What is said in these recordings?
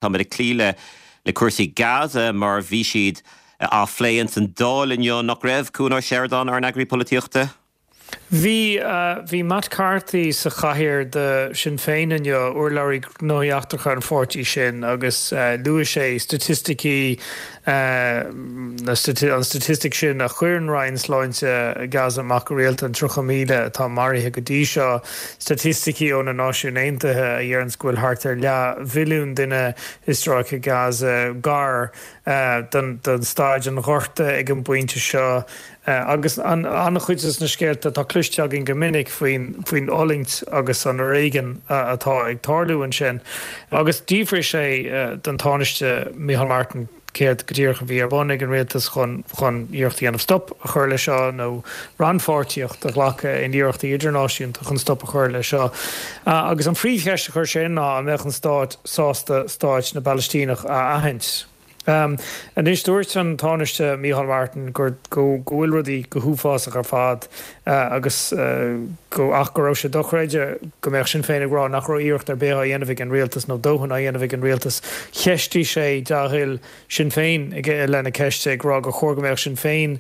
Táimid ag cloí le le cúrsaí Gaza mar bhí siad á phlé ins an Dáil inniu, nach raibh, Cuan Ó Seireadáin, ár n-eagraí polaitíochta? Bhí, bhí Matt Carthy sa chathaoir do Sinn Féin inniu, urlabhraí gnóthaí eachtracha an pháirtí sin, agus luaigh sé staitisticí, an staitistic sin a chuireann Roinn Sláinte Gaza amach go rialta, an 30,000 atá maraithe go dtí seo, staitisticí ó na Náisiúin Aontaithe a dheireanns go bhfuil thart ar leathmhilliún duine i stráice Gaza gar don staid an ghorta ag an bpointe seo. Agus an-chuid de na scéalta atá cloiste againn go minic faoin fhulaingt agus an fhoréigean atá ag tarlú ansin. Agus d'fhiafraigh sé den Tánaiste Micheál Martin céard go díreach a bhí ar bun ag an rialtas chun chun iarracht a dhéanamh stop a chur leis seo nó rannpháirtíocht a ghlacadh in iarrachtaí idirnáisiúnta chun stop a chur leis seo. Agus an phríomhcheist a chuir sé ná an mbeadh an stát sásta stáit na bPalaistíneach a aithint. Anois, dúirt an Tánaiste Micheál Martin gur go bhfuil rudaí go huafásach ar fad agus go ach go raibh sé dochreidte go mbeadh Sinn Féin ag rá nach raibh iarracht ar bith á dhéanamh ag an rialtas nó dóthain á dhéanamh ag an rialtas. Cheistigh sé dea-thoil Sinn Féin i leith na ceiste, ag rá gur chóir go mbeadh Sinn Féin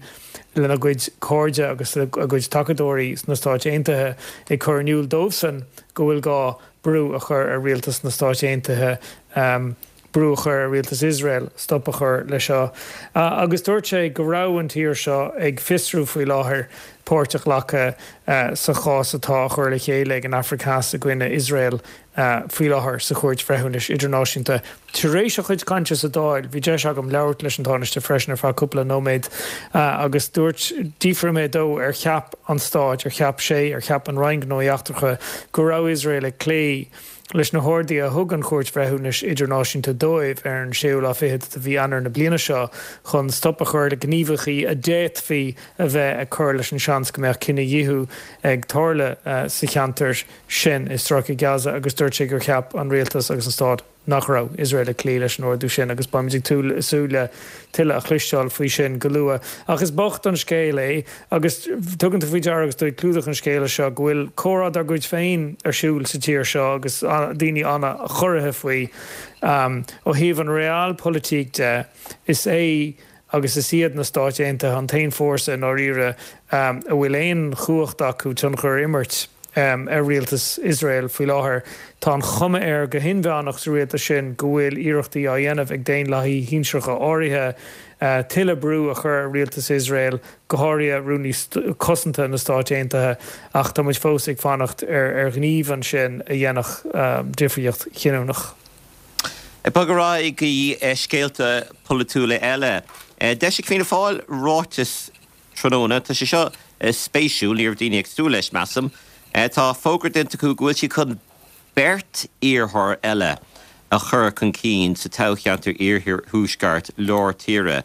lena gcuid cairde agus a gcuid tacadóirí sna Stáit Aontaithe ag cur in iúl dóibhsan go bhfuil gá brú a chur ar rialtas na Stáit Aontaithe brú a chur ar rialtas Iosrael stop a chur leis seo. Agus dúirt sé go raibh an tír seo ag fiosrú faoi láthair páirt a ghlacadh sa chás atá á chur le chéile ag an Afraic Theas i gcoinne Iosrael faoi láthair sa Chúirt Bhreithiúnais Idirnáisiúnta. Tar éis a chuid cainte sa Dáil, bhí deis agam labhairt leis an Tánaiste freisin ar feadh cúpla nóiméad agus dúirt, d'fhiafraigh mé dó ar cheap an Stát, ar cheap sé, ar cheap an Roinn Gnóthaí Eachtracha go raibh Iosrael ag cloí leis na horduithe a thug an Chúirt Bhreithiúnais Idirnáisiúnta dóibh ar an séú lá fichead de mhí Eanáir na bliana seo chun stop a chur le gníomhaíochtaí a d'fhéadfaí a bheith ag cur leis an seans go mbeadh cinedhíothú ag tarlú sa cheantar sin i Stráice Gaza agus dúirt sé gur cheap an rialtas agus an stát nach raibh Iosrael ag cloí leis an ordú sin agus beimid ag súil le tuilleadh a chloisteáil faoi sin go luath. Ach is bocht an scéal é agus tugann tú faoi deara agus tú ag clúdach an scéala seo go bhfuil comhrá dár gcuid féin ar siúl sa tír seo agus daoine an-chorraithe faoi. Ó thaobh an realpolitik de, is é agus is iad na Stáit Aontaithe an t-aon fórsa i ndáiríre a bhfuil aon chumhacht acu tionchar a imirt ar rialtas Iosrael faoi láthair. Tá an chuma air go hinmheánach sa rialtas sin go bhfuil iarrachtaí á dhéanamh ag daonlathaithe shinsearacha áirithe tuilleadh brú a chur ar rialtas Iosrael, go háirithe Rúnaí Cosanta na Stáit Aontaithe, ach tá muid fós ag fanacht ar ghníomh ansin a dhéanfadh difríocht chinniúnach. Ag bogadh ar aghaidh go dtí scéalta polaitiúla eile. D'eisigh Fianna Fáil ráiteas tráthnóna. Tá sé seo spéisiúil, ní raibh daoine ag súil leis, measaim. Tá fógra déanta acu go bhfuil siad chun beirt iarrthóir eile a chur chun cinn sa toghcheantar Iarthuaisceart Lár Tíre.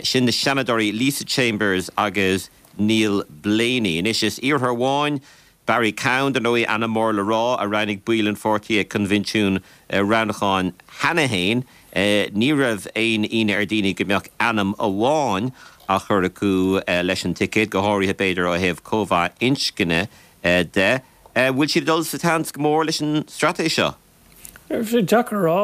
Sin na Seanadóirí Lisa Chambers agus Neil Blaney. Anois is iarrthóir amháin Barry Cowen, dar ndóigh, ainm mór le rá, a roghnaigh baill an pháirtí ag coinbhinsiún roghnúcháin cheana féin. Ní raibh aon ionadh ar dhaoine go mbeadh ainm amháin á chur acu leis an ticéad, go háirithe, b'fhéidir, ó thaobh cóimheá inscne de. Bhfuil siad ag dul sa tseans go mór leis an straitéis seo? Deacair a rá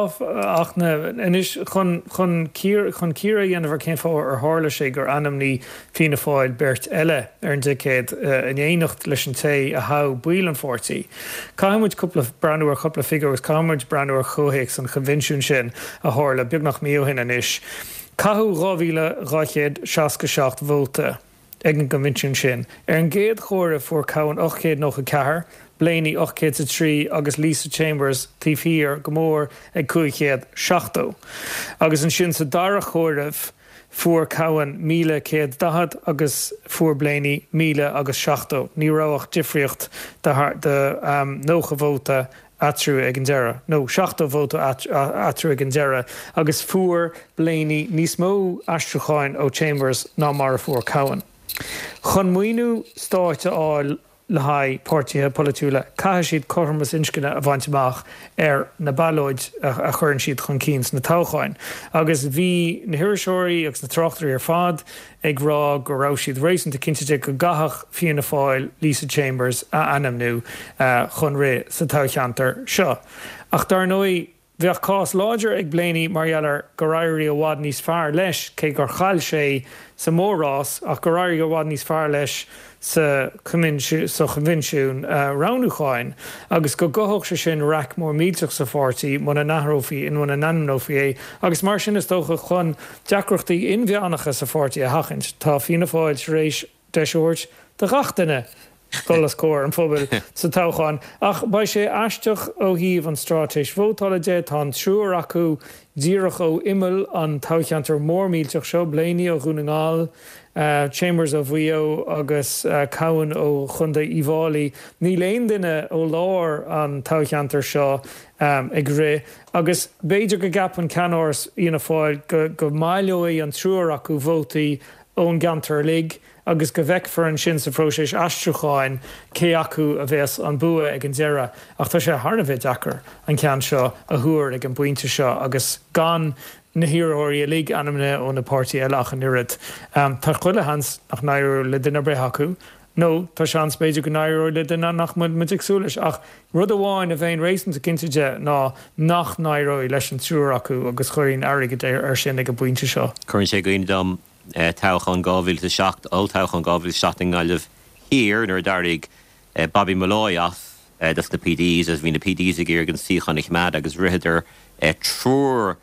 ach anois chun chun chun cíoradh a dhéanamh ar cén fáth ar tharla sé gur ainmnigh Fianna Fáil beirt eile ar an dticéad in éineacht leis an té a thogh baill an pháirtí. Caithfidh muid cúpla breathnú ar chúpla figiúr agus caithfidh muid breathnú ar chomhthéacs an choinbhinsiúin sin a tharla beagnach mí ó shin anois. Caitheadh 2,267 vóta. ag an gcoinbhinsiún sin. Ar an gcéad chomhaireamh fuair Cowen 894, Blaney 803 agus Lisa Chambers taobh thiar go mór ag 570. Agus ansin sa dara chomhaireamh fuair Cowen 1,140 agus fuair Blaney 1,000 agus 70. Ní raibh ach difríocht de 90 vóta eatarthu ag an deireadh, nó 70 vóta eatarthu ag an deireadh, agus fuair Blaney níos mó aistriúcháin ó Chambers ná mar a fuair Cowen. Chun maoiniú stáit a fháil le haghaidh páirtithe polaitiúla, caithfidh siad cothromas inscne a bhaint amach ar na ballóid a chuireann siad chun cinn sna toghcháin. Agus bhí na hiriseoirí agus na tráchtairí ar fad ag rá go raibh siad réasúnta cinnte de go gcaithfeadh Fianna Fáil Lisa Chambers a ainmniú chun rith sa toghcheantar seo. Ach dar ndóigh, Bheadh cás láidir ag Blaney mar gheall ar gur éirigh i bhfad níos fearr leis, cé gur chaill sé sa mhór-rás, ach gur éirigh i bhfad níos fearr leis sa choinbhinsiún roghnúcháin agus go gcothódh sé sin raic mór millteach sa pháirtí muna n-athrófaí nó muna n-ainmneofaí é agus mar sin is dócha chun deacrachtaí inmheánacha sa pháirtí a sheachaint tá Fianna Fáil tar éis deis a thabhairt do ghach duine dul os comhair an phobail sa toghchán. Ach beidh sé aisteach ó thaobh an straitéis vótála de, tá an triúr acu díreach ó imeall an toghcheantair mór millteach seo, Blaney ó Dhún na nGall, Chambers ó Mhaigh Eo agus Cowen ó Chontae Uíbh Fháilí. Níl aon duine ó lár an toghcheantair seo ag rith agus b'fhéidir go gceapann ceannáras Fhianna Fáil go mbaileoidh an triúr acu vótaí ón gceantar uilig agus go bhfeicfear ansin sa phróiseas aistriúcháin cé acu a bheas an bua ag an deireadh. Ach tá sé thar a bheith deacair an ceann seo a thuar ag an bpointe seo agus gan na hiarrthóirí uilig ainmnithe ó na páirtithe eile ach an oiread. Tá chuile sheans nach n-éireoidh le duine ar bith acu nó tá seans b'fhéidir go n-éireoidh le duine nach bhfuil muid ag súil leis. Ach rud amháin a bheinn réasúnta cinnte de ná nach n-éireoidh leis an triúr acu agus chuirfinn airgead air sin ag an bpointe seo. Cuireann sé i gcuimhne dom toghchán 2007, olltoghchán 2007 i nGaillimh Thiar nuair a d'éirigh Bobby Molloy as dos na PDs agus bhí na PDs ag iarraidh an suíochán a choimeád agus ritheadar triúr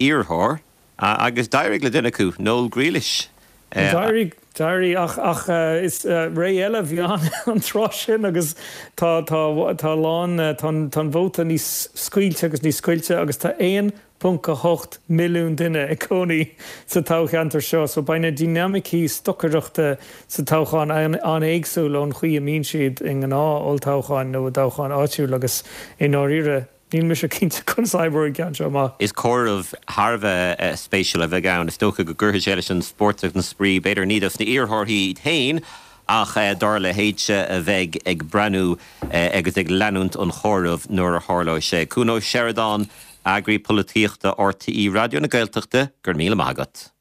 iarrthóir agus d'éirigh le duine acu, Noel Grealish. D'éirigh, d'éirigh ach, ach is ré eile a bhí ann an tráth sin agus tá, tá, tá a lán, tá an, tá an vóta níos scaoilte agus níos scoilte agus tá 1.8 milliún duine ag cónaí sa toghcheantar seo so beidh na dinimicí stocaireachta sa toghchán an-éagsúil ón chaoi a mbíonn siad i ngnáth-olltoghcháin nó i dtoghcháin áitiúil agus i ndáiríre Níl mise cinnte conas a oibreoidh an ceann seo amach. Is comhaireamh thar a bheith spéisiúil a bheidh ann. Is dócha go gcuirfidh sé leis an spórt agus an spraoi, b'fhéidir ní dos na iarrthóirí iad féin ach dár leithéidse a bheidh ag breathnú agus ag leanúint an chomhairimh nuair a tharlóidh sé. Cuan Ó Seireadáin, Eagraí Polaitíochta RTÉ Raidió na Gaeltachta, go raibh míle maith agat.